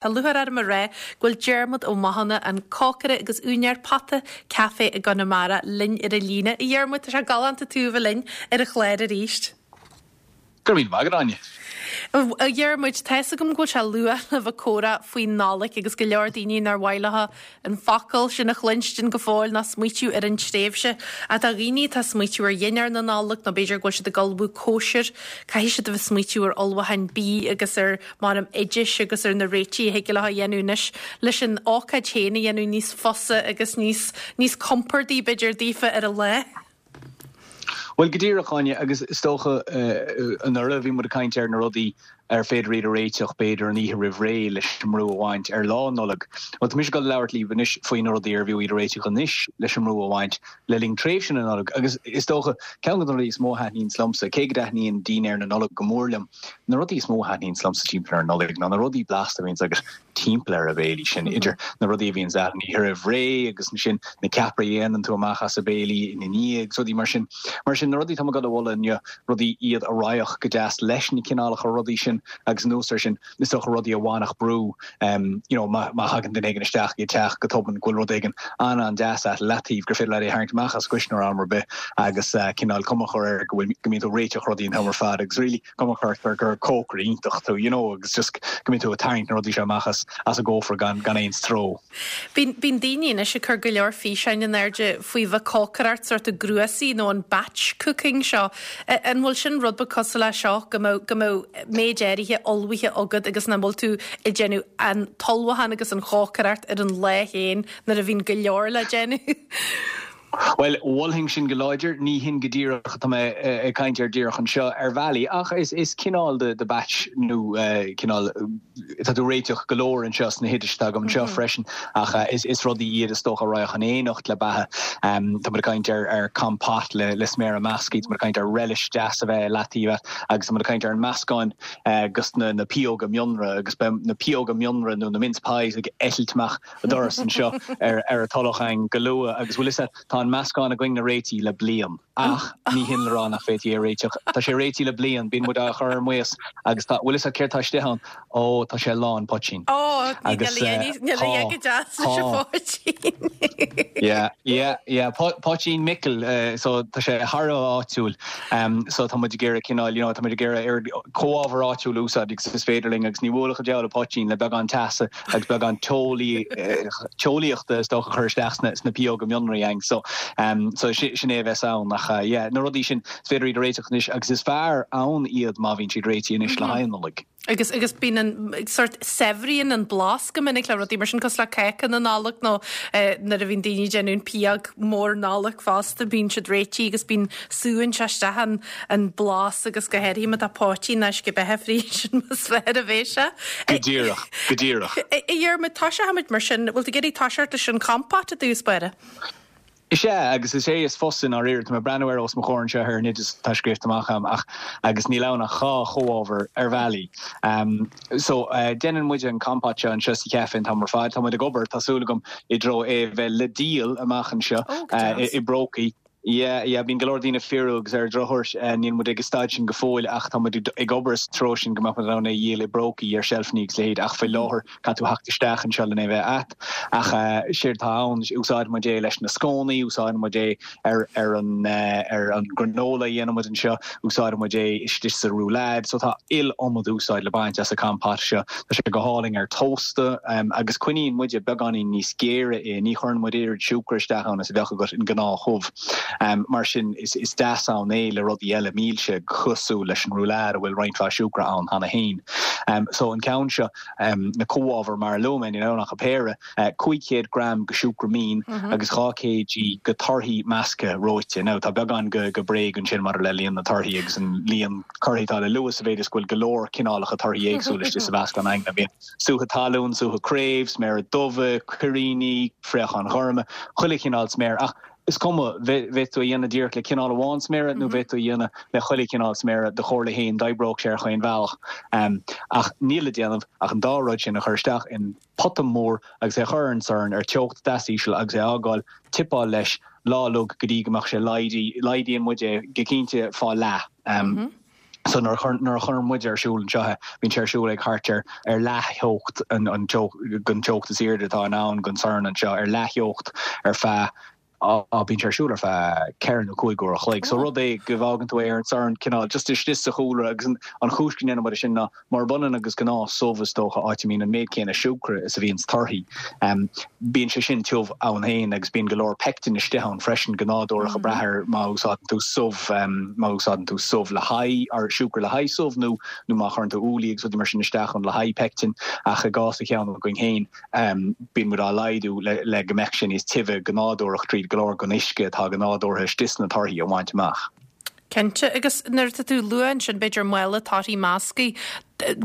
Tá lúcháir orm a rá go bhfuil Diarmuid Ó Mathúna, an cócaire agus úinéir Pota Café i gConamara, linn ar an líne. A Dhiarmuid, tá sé galánta tú a bheith linn ar an chlár arís. Go raibh míle maith agat, Áine. A Dhiarmuid, tá fhios agam go bhfuil sé luath le bheith ag comhrá faoin Nollaig agus go leor daoine nár mhaith leo an focal sin a chluinstin go fóill ná smaoitiú ar an tréimhse. Ach do dhaoine atá ag smaoitiú ar dhinnéar na Nollag nó b'fhéidir go bhfuil siad ag ullmhú cóisir, caithfidh siad a bheith ag smaoitiú ar ullmhúcháin bídh agus ar, measaim, oidis agus ar na réitigh a thig leo a dhéanamh anois leis an ócáid féin a dhéanamh níos fusa agus níos, níos compordaí b'fhéidir daofa ar an lá. Bhuel, go díreach, Áine, agus is dócha anuraidh bhí muid ag caint ar na rudaí ar féidir iad a réiteach b'fhéidir an oíche roimh ré leis an mbrú a bhaint ar Lá Nollag. Bhuel, tá mise ag dul a labhairt libh anois faoi na rudaí ar bhfiú iad a réiteach anois leis an mbrú a bhaint le linn tréimhse na Nollag. Agus is dócha, ceann de na rudaí is mó a thaitníonns liomsa, cé go dtaitníonn dinnéar na Nollag go mór liom, na rudaí is mó a thaitníonns liomsa timpeall ar an Nollaig ná na rudaí blasta a bhíonns agat timpeall ar an bhéilí sin, idir na rudaí a bhíonns agat an oíche roimh ré agus ansin na ceapairí a dhéanann tú amach as an béilí ina ndiaidh agus rudaí mar sin. Mar sin, na rudaí atá mé ag dul a mholadh inniu, rudaí iad a raghadh go deas leis na cineálacha rudaí sin agus anuas air sin, is dócha rudaí a bhainfeadh brú, you know, má thagann duine éigin isteach i do theach go tobann go bhfuil rud éigin an-an-deas agat i leataobh gur féidir leat é a tharraingt amach as an gcuisneoir am ar bith agus cineál cuma a chur air go bhfuil, go mbíonn tú ag réiteach rudaí an t-am ar fad agus really, cuma a chur air gur cócaire iontach tú, you know, agus just go mbíonn tú ag tarraingt na rudaí seo amach as as an gcófra gan gan aon stró. Bíonn bíonn daoine anois ag cur go leor físeáin in airde faoi bheith cócaireacht sórt i gcnuasaigh nó an batch cooking seo. An bhfuil sin rud beag cosúil leis seo, go mbeadh go mbeadh méid áirithe ullmhaithe agat agus nach bhfuil tú ag déanamh an t-ullmhúchán agus an chócaireacht ar an lá féin nuair a bhíonn go leor le déanamh? Bhuel, mholfainn sin go láidir. Ní hin go díreach atá mé ag caint air díreach anseo, ar bhealaí, ach is cineál de batch nó cineál, tá tú ag réiteach go leor anseo sna hoidis atá agam anseo freisin, ach is rudaí iad is dócha a raghadh in éineacht le beatha. Tá muid ag caint ar compote le sméara measctha, tá muid ag caint ar relish deas a bheith i leataobh agus tá muid ag caint ar an meascán dos na pióga mionra agus beidh na pióga mionra nó na mince pies ag eitilt amach an doras anseo ar an Tulach againn go luath agus bhfuil fhios a't, tá an meascán againn réitithe le bliain ach ní hin le rá nach bhféadfaí é a réiteach. Tá sé réitithe le bliain, bíonn muid á chur ar maos agus tá, bhfuil fhios a't céard tá istigh ann? Ó, tá sé lán poitín. Ó, Agus níl a dhath go deas leis an phoitín. Yeah, yeah, yeah, poitín Micil, so tá sé thar a bheith áitiúil. So tá muid ag iarraidh cineál, you know, tá muid ag iarraidh oiread comhábhar áitiúil a úsáid agus is féidir linn agus ní bhuailfeadh an diabhal an poitín le beagán teasa agus beagán teolaíochta is dócha a chur isteach sna pióga mionraí againn. So, so sin é a bheas ann. Ach yeah, na rudaí sin, is féidir iad a réiteach anois agus is fearr ann iad má bhíonn siad réitithe anois le haghaidh an Nollaig. Agus, agus bíonn an, sort, saibhríonn an blas go minic le rudaí mar sin, cosúil le cáca na Nollag nó nuair a bhíonn daoine ag déanamh an pióg mór Nollag fosta, bíonn siad réitithe agus bíonn, súann sé isteach an, an blas agus go háirithe má tá poitín nó uisce beatha fríd, sin is fearr a bheidh sé. Go díreach, go díreach. A Dhiarmuid, tosóimid mar sin, bhfuil tú ag iarraidh toiseacht leis an compote i dtús báire? Is ea, agus is é is fusa i ndáiríre. Tá mé ag breathnú air os mo chomhair anseo ar an oideas atá scríofa amach agam ach agus níl ann ach dhá chomhábhar ar bhealaí. So, déanann muide an compote seo anseo sa chaife an t-am ar fad. Tá muid ag obair, tá súil agam, i dtreo é a bheith le díol amach anseo i bprócaí. Yeah, yeah, bíonn go leor daoine ag fiafraí agus ar an drochuair níl muid ag an staid sin go fóill ach tá muid ag obair sa treo sin go mbeadh muid in ann é a dhíol i bprócaí ar seilfeanna agus a leithéid ach faoi láthair caithfidh tú theacht isteach anseo len é bheith a't. Ach séard atá ann, úsáideann muid é leis na scónaí, úsáideann muid é ar ar an ar an granola a dhéanann muid anseo, úsáideann muid é istigh sa roulade, so tá iliomad úsáid le baint as an compote seo. Tá sé go hálainn ar tósta agus coinníonn muide beagáinín níos géire é, ní chuireann muid oiread siúcra isteach ann is a bheadh agat in gnáth-shubh. Mar sin is deas ann é le rudaí eile milse cosúil leis an roulade a bhfuil roinnt mhaith siúcra ann cheana féin. So an ceann seo, na comhábhair mar a luaigh mé, níl ann ach an péire. 500 gram de siúcra mín agus 2 kg de torthaí measctha reoite. Now tá beagán de bréag ansin maidir le líon na torthaí agus an líon torthaí atá le lua sa mhéid is go bhfuil go leor cineálacha torthaí éagsúla istigh sa mheascán againne. Bíonn sútha talún, sútha craobh, sméara dubha, cuiríní, fraocháin ghorma, chuile chineál sméar ach is cuma, bheadh tú á dhéanamh díreach le cineál amháin sméara nó bheadh tú á dhéanamh le chuile chineál sméara, do chomhairle féin, d'oibreodh sé ar chaon bhealach. Ach níl le déanamh ach an dá rud sin a chur isteach in. pota mór agus é a chur ar an sorn ar teocht deas íseal agus é a fhágáil tipeáil leis lá uilig go dtí go mbeadh sé laghdaithe, laghdaíonn muid é go cinnte fá leath. So nuair a nuair a chuireann muid ar siúl anseo é, bíonn sé ar siúl ag thart ar ar leath-theocht an an teocht den teocht is airde atá in ann den sorn anseo, ar leath-theocht ar feadh á bíonn sé ar siúl ar feadh ceithre nó cúig uair a chloig. So rud é go bhfágann tú é ar an sorn cineál just istigh sa chúlra agus an an chúis go ndéanann muid é sin ná Murab ionann agus gnáth subh, is dócha, áit a mbíonn an méid céanna siúcra is a bhíonn sna torthaí, bíonn sé sin tiubh ann féin agus bíonn go leor peictin istigh ann freisin, go nádúrach, ag brath ar má úsáideann tú subh, má úsáideann tú subh le haghaidh, or siúcra le haghaidh subh nó nó má chuireann tú úllaí agus rudaí mar sin isteach ann le haghaidh peictin. Ach i gcás an cheann againn féin, bíonn muid á laghdú le le go mbeadh sé níos tibhe go nádúrach tríd go leor den uisce atá go nádúrtha istigh sna torthaí a bhaint amach. Cinnte, agus nuair atá tú ag lua ansin, b'fhéidir mála torthaí measctha,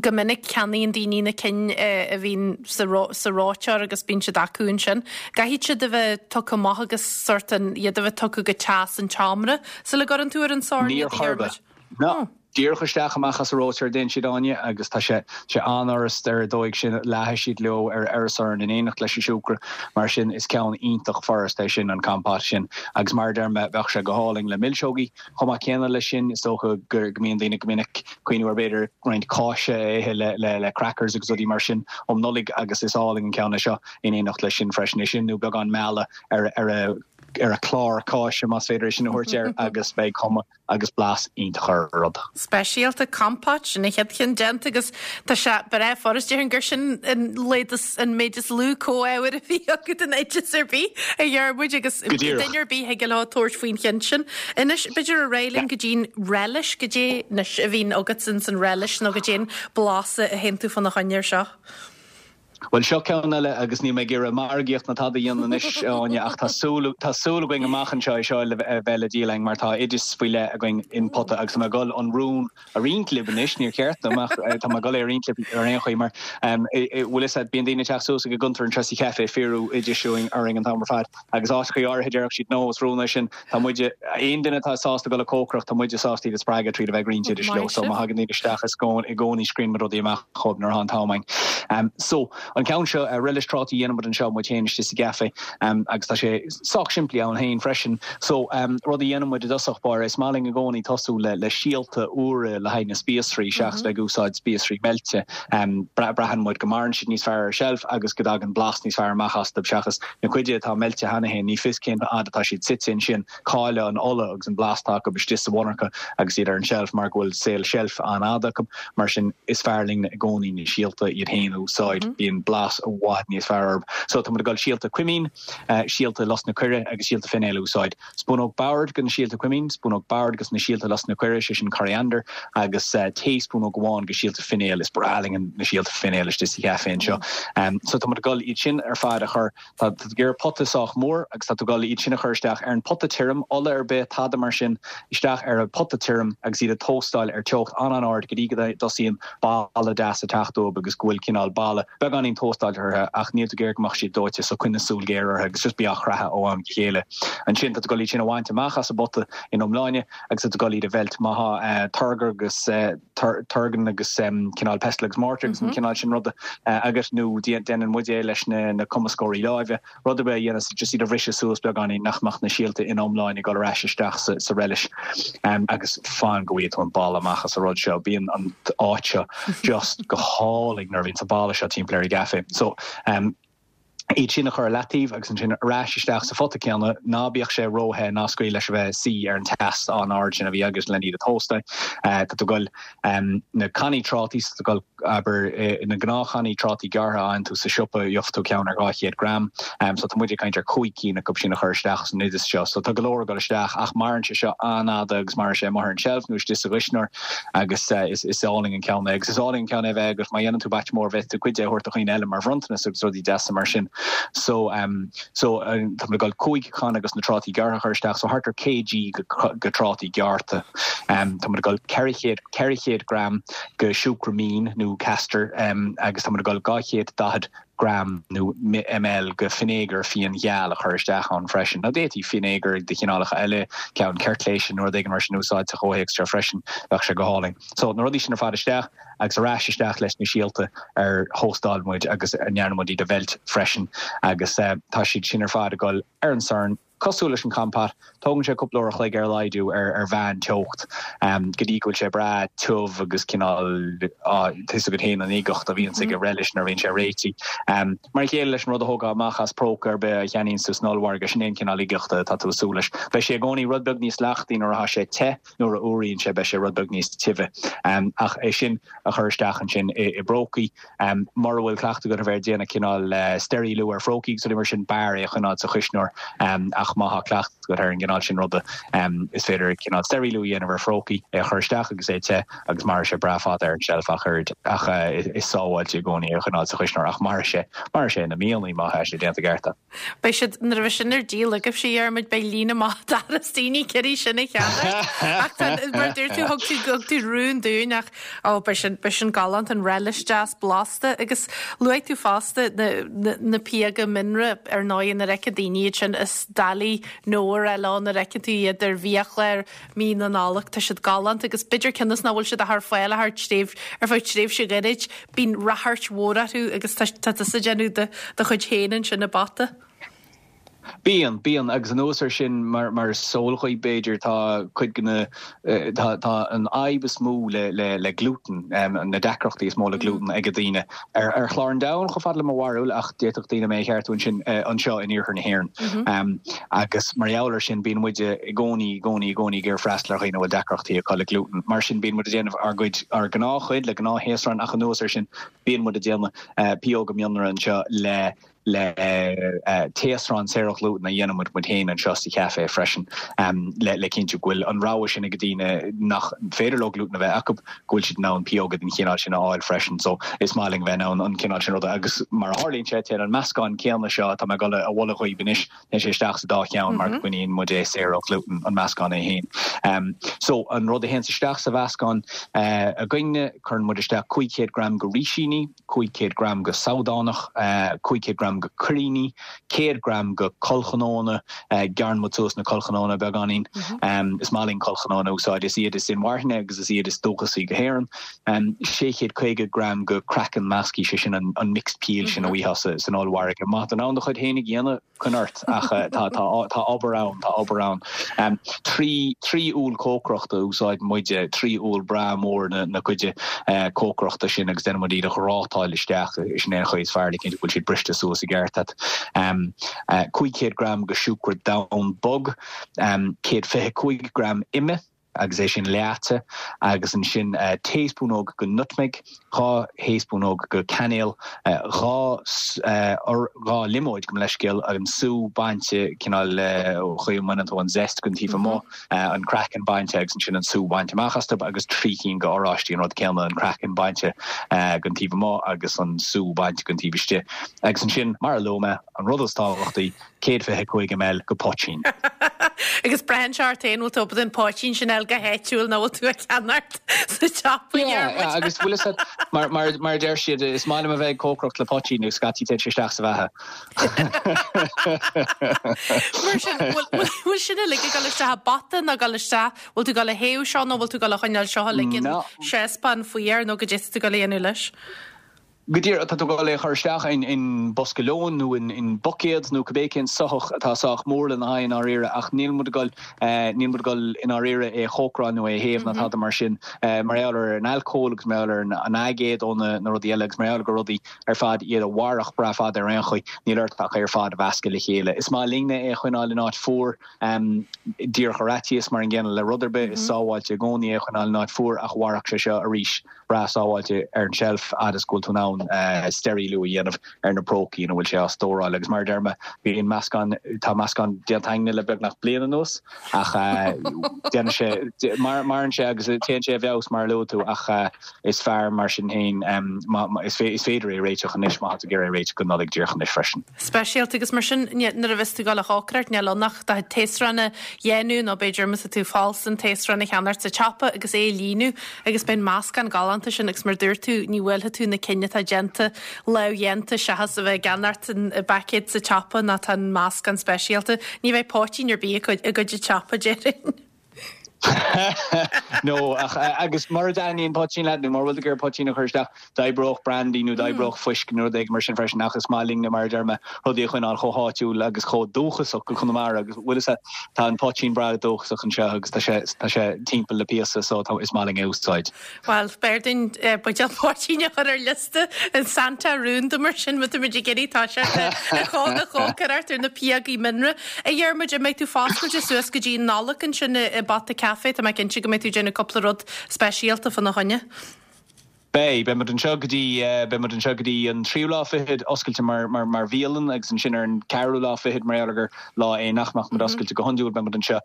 go minic ceannaíonn daoine na cinn a bhíonn sa sa reoiteoir agus bíonn siad acu ansin. Caithfidh siad a bheith tugtha amach agus sórt an, iad a bheith tugtha go teas an tseomra sula gcuireann tú ar an sorn iad, a Dhiarmuid. No. Díreach isteach amach as an reoiteoir a dtéann siad, Áine, agus tá sé sé an-fhurast ar an dóigh sin, leáfaidh siad leo ar ar an sorn in éineacht leis an siúcra, mar sin is ceann iontach furast é sin, an compote sin. Agus mar a deir mé, bheadh sé go hálainn le milseogaí chomh maith céanna leis sin. Is dócha go mbíonn daoine go minic ag cuimhniú ar b'fhéidir roinnt cáise a ithe le le le crackers agus rudaí mar sin um Nollaig agus is álainn an ceann é seo in éineacht leis sin freisin. É sin nó beagán meala ar ar a ar a chlár cáise más féidir é sin a thabhairt air agus beidh cuma agus blas iontach ar an rud. Speisialta, compote, sin an chéad cheann déanta agus tá sé breá furast. Déarfainn gur sin an leid is, an méid is lú comhábhair a bhí agat in oideas ar bith, a Dhiarmuid, agus Go díreach. duine ar bith thig leo tabhairt faoin cheann sin. Anois, b'fhéidir ar aghaidh linn go dtí'n relish, goidé anois a bhíonn agat ins an relish nó goidé an blas a théann tú fána choinne ar seo. Bhuel, seo ceann eile agus níl mé ag iarraidh margaíocht ná tada a dhéanamh anois, a Áine, ach tá súil, tá súil againn amach anseo é seo a bheith le díol againn mar tá oideas faoi leith againn in pota agus tá mé ag dul an rún a roinnt libh anois, níor cheart dom ach tá mé ag dul é a roinnt libh ar aon chaoi mar bhfuil fhios agat, bíonn daoine ag teacht suas ag an gcuntar anseo sa chaife ag fiafraí oidis orainn an t-am ar fad agus áiteachaí áirithe déarfadh siad no, is rún é sin. Tá muide, aon duine atá sásta dul ag cócaireacht, tá muide sásta iad a spreagadh tríd a bheith ag roinnt oidis leo. So má thagann daoine isteach is i gcónaí scríobhann muid rudaí amach dhóibh nuair atá an t-am againn. So, an ceann seo, relish trátaí a dhéanann muid anseo muid féin istigh sa gcaife agus tá sé sách simplí ann féin freisin. So, rud a dhéanann muid i dtosach báire, is maith linn i gcónaí tosú le le síolta úra le haghaidh na spíosraí seachas bheith ag úsáid spíosraí meilte. Braitheann muid go maireann siad níos fearr ar seilf agus go dtagann blas níos fearr amach astu seachas Na cuid atá meilte cheana féin, ní fios cén fhad atá siad suite ansin, cailleadh an ola agus an blas atá acu istigh sa mhonarcha agus iad ar an tseilf mar go bhfuil saol seilf an-fhada acu. Mar sin, is fearr linn i gcónaí na síolta iad féin a úsáid, bíonn blas i bhfad níos fearr orthu. So, tá muid ag dul síolta cuimín, síolta lus na coire agus síolta finéil a úsáid. Spúnóg boird de na síolta cuimín, spúnóg boird de na síolta lus na coire, sé sin coriander, agus taespúnóg amháin de síolta finéil. Is breá linn na síolta finéil istigh sa chaife anseo. So tá muid ag dul iad sin ar fad a chur, tá tú ag iarraidh pota sách mór agus tá tú ag dul iad sin a chur isteach ar an pota tirim, ola ar bith, tada mar sin, isteach ar an pota tirim agus iad a tóstáil ar teocht an-an-ard go dtí go dtosaíonn boladh deas ag teacht uathu agus go bhfuil cineál boladh beagáinín tóstáilte orthu ach níl tú ag iarraidh go mbeadh siad dóite so coinnigh súil ghéar orthu agus just bí á chreathadh ó am go chéile. Ansin tá tú ag dul iad sin a bhaint amach as an bpota ina iomláine agus tá tú ag dul iad a mheilt. Má tá turgar agus turgan agus cineál pestle agus mortar agus an cineál sin ruda agat nó déanann muid é leis na cumascóirí láimhe. Rud ar bith a dhéanas just iad a bhriseadh suas beagáinín nach mbeadh na síolta ina iomláine ag dul ar ais isteach sa relish agus fan go bhfaighidh tú an boladh amach as an rud seo. Bíonn an áit seo just go hálainn nuair a bhíonn an boladh seo timpeall ar an gcaife. So iad sin a chur ar leataobh agus ansin ar ais isteach sa phota céanna, ná bíodh sé ró-the, ná scaoil leis a bheith ag suí ar an teas an-ard sin a bhí agat len iad a thóstáil. Tá tú ag dul na cannaí trátaí, so tá tú ag dul abair, na gnáthchannaí trátaí gearrtha a fhaigheann tú sa siopa, gheobhaidh tú ceann ar 200 gram. So tá muid ag caint ar 5 cinn acu sin a chur isteach san oideas seo. So tá go leor ag dul isteach ach maireann sé seo an-fhada agus maireann sé amuigh ar an tseilf nó istigh sa gcuisneoir agus is álainn an ceann é. Agus is álainn an ceann é a bheith agat má dhéanann tú batch mór bhféadfadh tú cuid de a thabhairt do dhaoine eile mar bhronntanas agus rudaí deasa mar sin. So So, tá muid ag dul 5 channa dos na trátaí gearrtha a chur isteach, so thart ar kg de trátaí gearrtha. Tá muid ag dul 400, 400 gram de siúcra mín nó castor agus tá muid ag dul 240 gram nó ml de fínéagar fíongheal a chur isteach ann freisin. Now d'fhéadfaí fínéagar de chineálacha eile, ceann ceirtléise nó rud éigin mar sin a úsáid sa chomhthéacs seo freisin, bheadh sé go hálainn. So, na rudaí sin ar fad isteach. agus ar ais isteach leis na síolta ar thóstáil muid agus a ndearna muid iad a mheilt freisin agus tá siad sin ar fad ag dul ar an sorn. Cosúil leis an compote, tógann sé cúpla uair a chloig ar a laghad ar mheán teocht go dtí go bhfuil sé breá tiubh agus cineál, tá fhios agat féin an uigeacht a bhíonns ag an relish nuair a bhíonn sé réitithe. Mar a chéile leis an rud a thógfá amach as próca ar bith a cheannaíonns tú san ollmhargadh, sin é an cineál uigeachta atá tú ag súil leis. Beidh sé i gcónaí rud beag níos leachtaí nuair atá sé te, nuair a fhuaraíonn sé beidh sé rud beag níos tibhe. Ach é sin a chur isteach ansin i bprócaí. Mura bhfuil cleachtadh agat a bheith ag déanamh cineál steiríliú ar phrócaí agus rudaí mar sin, b'fhearr é a choinneáil sa chuisneoir. Ach má tá cleachtadh agat ar an gcineál sin ruda, is féidir cineál steiríliú a dhéanamh ar phrócaí, é a chur isteach agus é te agus mairfidh sé breá fada ar an tseilf ach oiread. Ach is sábháilte i gcónaí é a choinneáil sa chuisneoir ach mairfidh sé, mairfidh sé na míonna má tá sé déanta i gceart. Beidh siad, nuair a bheidh sin ar díol agaibhse, a Dhiarmuid, beidh líne maith an doras daoine ag iarraidh sin a cheannacht. Ach tá, mar a dúirt tú, thug tú, thug tú rún dúinn ach, ó, beidh sin, beidh sin galánta, an relish deas blasta agus luaigh tú fosta na, na, na píoga mionra ar ndóigh nuair a fheiceann daoine iad sin is doiligh no a rá leo nuair a fheiceann tú iad ar bhiachlár mí na Nollag. Tá siad galánta agus b'fhéidir cionn is nach bhfuil siad ach ar fáil ach thar tréimh, ar feadh tréimhse ghairid, bíonn ráchairt mhór orthu agus tá, tá tusa ag déanamh do, do chuid féin ansin i bpota. Bíonn, bíonn agus anuas air sin mar, mar is eol dhaoibh b'fhéidir tá cuid de na, tá, tá an fhadhb is mó le, le, le glútan, na deacrachtaí is mó le glútan ag daoine ar, ar chlár an domhain chomh fada le mo bharúil ach d'fhéadfadh daoine mé a cheartú ansin, anseo in iarthar na hÉireann. Agus mar gheall air sin, bíonn muid i gcónaí, i gcónaí, i gcónaí ag iarraidh freastal ar dhaoine a bhfuil deacrachtaí acu le glútan. Mar sin, bíonn muid ag déanamh ár gcuid, ár gnáthchuid le gnáth-thaosrán ach anuas air sin, bíonn muid ag déanamh pióga mionra anseo le, le taosrán saor ó ghlútan a dhéanann muid muid féin anseo sa chaifé freisin le, le cinntiú go bhfuil an rogha sin ag daoine nach féidir leo glútan a bheith acu, go bhfuil siad in ann pióga den chineál sin a fháil freisin. So, is maith linn bheith in ann an cineál sin ruda agus mar a tharlaíonn sé, téann an meascán céanna seo atá mé ag dul a mholadh dhaoibh anois, téann sé isteach sa dá cheann mar go gcoinníonn muid é saor ó ghlútan, an meascán é féin. So, an rud a théanns isteach sa mheascán againne, cuireann muid isteach 500 gram go rísíní, 500 gram go sabhdánach, 500 gram go cuiríní, 100 gram go collchnónna, gearrann muid suas na collchnónna beagáinín, is maith linn collchnónna a úsáid, is iad is inmharthana agus is iad is dúchasaí go hÉireann, 650 gram go craiceann measctha, sé sin an mixed peel sin a bhfaighfeá san ollmhargadh. Má tá tú in ann do chuid féinig a dhéanamh, coinnigh ort, ach tá, tá, tá obair ann, tá obair ann. 3, 3 úll cócaireachta a úsáideann muide, 3 úll breá mór na, na cuide cócaireachta sin agus déanann muid iad a ghrátáil isteach, sin é an chaoi is fearr le cinntiú go bhfuil siad briste suas i gceart a't. 500 gram go siúcra donn bog, 125 gram ime, agus é sin leáite, agus ansin taespúnóg go nutmeg, 2 thaespúnóg go cainéal, 2 2 liomóid, gabh mo leithscéal, an sú bainte, cineál chaoi a mbaineann tú an zest den taobh amuigh, an craiceann bainte agus ansin an sú bainte amach astu, agus 3 cinn go oráistí, an rud céanna, an craiceann bainte den taobh amuigh agus an sú bainte den taobh istigh. Agus ansin, mar a luaigh mé, an rud is tábhachtaí, 125 ml go poitín. Agus braitheann sé ort féin, bhfuil tú ábalta an poitín sin a fháil go háitiúil nó bhfuil tú á cheannacht sa tsiopa, a Dhiarmuid? Agus bhfuil fhios agat, mar, mar, mar a deir siad, is maith liom a bheith ag cócaireacht le poitín agus scaití téann sé isteach sa bheatha. Mar sin, bhfuil, bhfuil, bhfuil sin uilig ag dul isteach i bpota nó ag dul isteach, bhfuil tú ag dul a théamh seo nó bhfuil tú ag dul a choinneáil seo uilig in saucepan fuar nó goidé tá tú ag dul a dhéanamh leis? Go díreach, tá tú ag dul é a chur isteach in bosca lóin nó in buicéad nó cibé cén soitheach atá sách mór lena haghaidh i ndáiríre ach níl muid ag dul, níl muid ag dul i ndáiríre é a chócaráil nó é a théamh ná tada mar sin mar gheall ar an alcól agus mar gheall ar an aigéad ó na rudaí eile agus mar gheall gur rudaí ar fad iad a mhairfeadh breá fada ar aon chaoi, níl ort ach é ar fad a mheascadh le chéile. Is maith linne é a choinneáil in áit fuar, díreach ar fhaitíos mar an gcéanna le rud ar bith, is sábháilte i gcónaí é a choinneáil in áit fuar ach mhairfeadh sé seo arís. breá sábháilte ar an tseilf fhad is go bhfuil tú in ann steiríliú a dhéanamh ar na prócaí ina bhfuil sé á stóráil. Agus mar a deir mé, bíonn meascán, tá meascán déanta againne le beagnach bliain anuas ach déanann sé, maireann sé agus téann sé i bhfeabhas mar a luaigh tú ach is fearr mar sin féin, is féidir é a réiteach anois má tá tú ag iarraidh é a réiteach don Nollaig díreach anois freisin. speisialta agus mar sin nuair a bheas tú ag dul a chócaireacht níl ann ach do thaosrán a dhéanamh nó b'fhéidir má tá tú falsa an taosrán a cheannacht sa tsiopa agus é a líonadh agus beidh an meascán galánta sin agus mar dúirt tú ní bhuailfidh tú na cinn atá déanta lámhdhéanta seachas a bheith ag ceannacht an paicéad sa tsiopa nó tá an meascán speisialta. Ní bheidh poitín ar bith i gcuid an tsiopa déarfainn. No, ach, agus mura dtaitníonn poitín leat nó mura bhfuil tú ag iarraidh poitín a chur isteach, d'oibreodh brandy nó d'oibreodh fuisce nó rud éigin mar sin freisin ach is maith linne, mar a deir mé, rudaí a choinneáil chomh háitiúil agus chomh dúchasach go Conamara agus bhfuil fhios a'd, tá an poitín breá dúchasach anseo agus tá sé, tá sé timpeall le píosa so tá, is maith linn é a úsáid. Bhuel, b'fhearr dúinn buidéal poitín a chur ar liosta an Santa rúnda mar sin má táimid ag iarraidh toiseacht ag cócaireacht ar na píogaí mianra. A Dhiarmuid, an mbeidh tú foscailte suas go dtí an Nollaig ansin i bPota Café? Tá mé cinnte go mbeidh tú ag déanamh cúpla rud speisialta fána choinne. Beidh. Beidh muid anseo go dtí, beidh muid anseo go dtí an tríú lá fichead, oscailte mar, mar, mar bhialann agus ansin ar an ceathrú lá fichead, mar gheall ar gur lá é nach mbeadh muid oscailte go hiondúil, beidh muid anseo.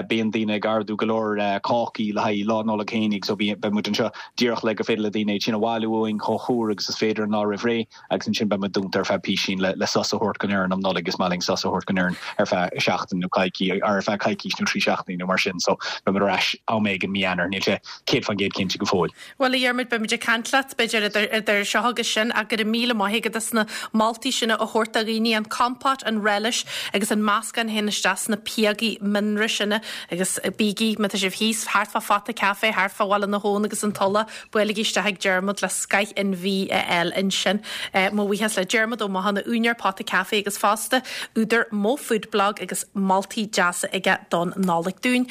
Bíonn daoine ag ordú go leor cácaí le haghaidh Lá Nollag fhéinig so beidh muid anseo díreach le gur féidir le daoine iad sin a bhailiú uainn chomh húr agus is féidir an lá roimh ré agus ansin beidh muid dúnta ar feadh písín le sos a thabhairt don fhoireann um Nollaig. Is maith linn sos a thabhairt don fhoireann ar feadh seachtain nó coicís ar feadh coicís nó 3 seachtainí nó mar sin so beidh muid ar ais am éigin mí Eanáir. Níl sé 100% cinnte go fóill. Bhuel, a Dhiarmuid, beimid ag caint leat, b'fhéidir, idir, idir seo agus sin, ach go raibh míle maith agat as na moltaí sin a thabhairt do dhaoine, an compote, an relish agus an meascán a théann isteach sna píogaí mianra sin agus bígí, má tá sibh thíos thart fá Phota Café, thart fá Bhaile na hAbhann agus an Tulach, buailigí isteach ag Diarmuid le scoith an bhídh a fháil ansin. Mo bhuíochas le Diarmuid Ó Mathúna, úinéir Pota Café agus fosta údar Mo Food Blog agus moltaí deasa aige don Nollaig dúinn.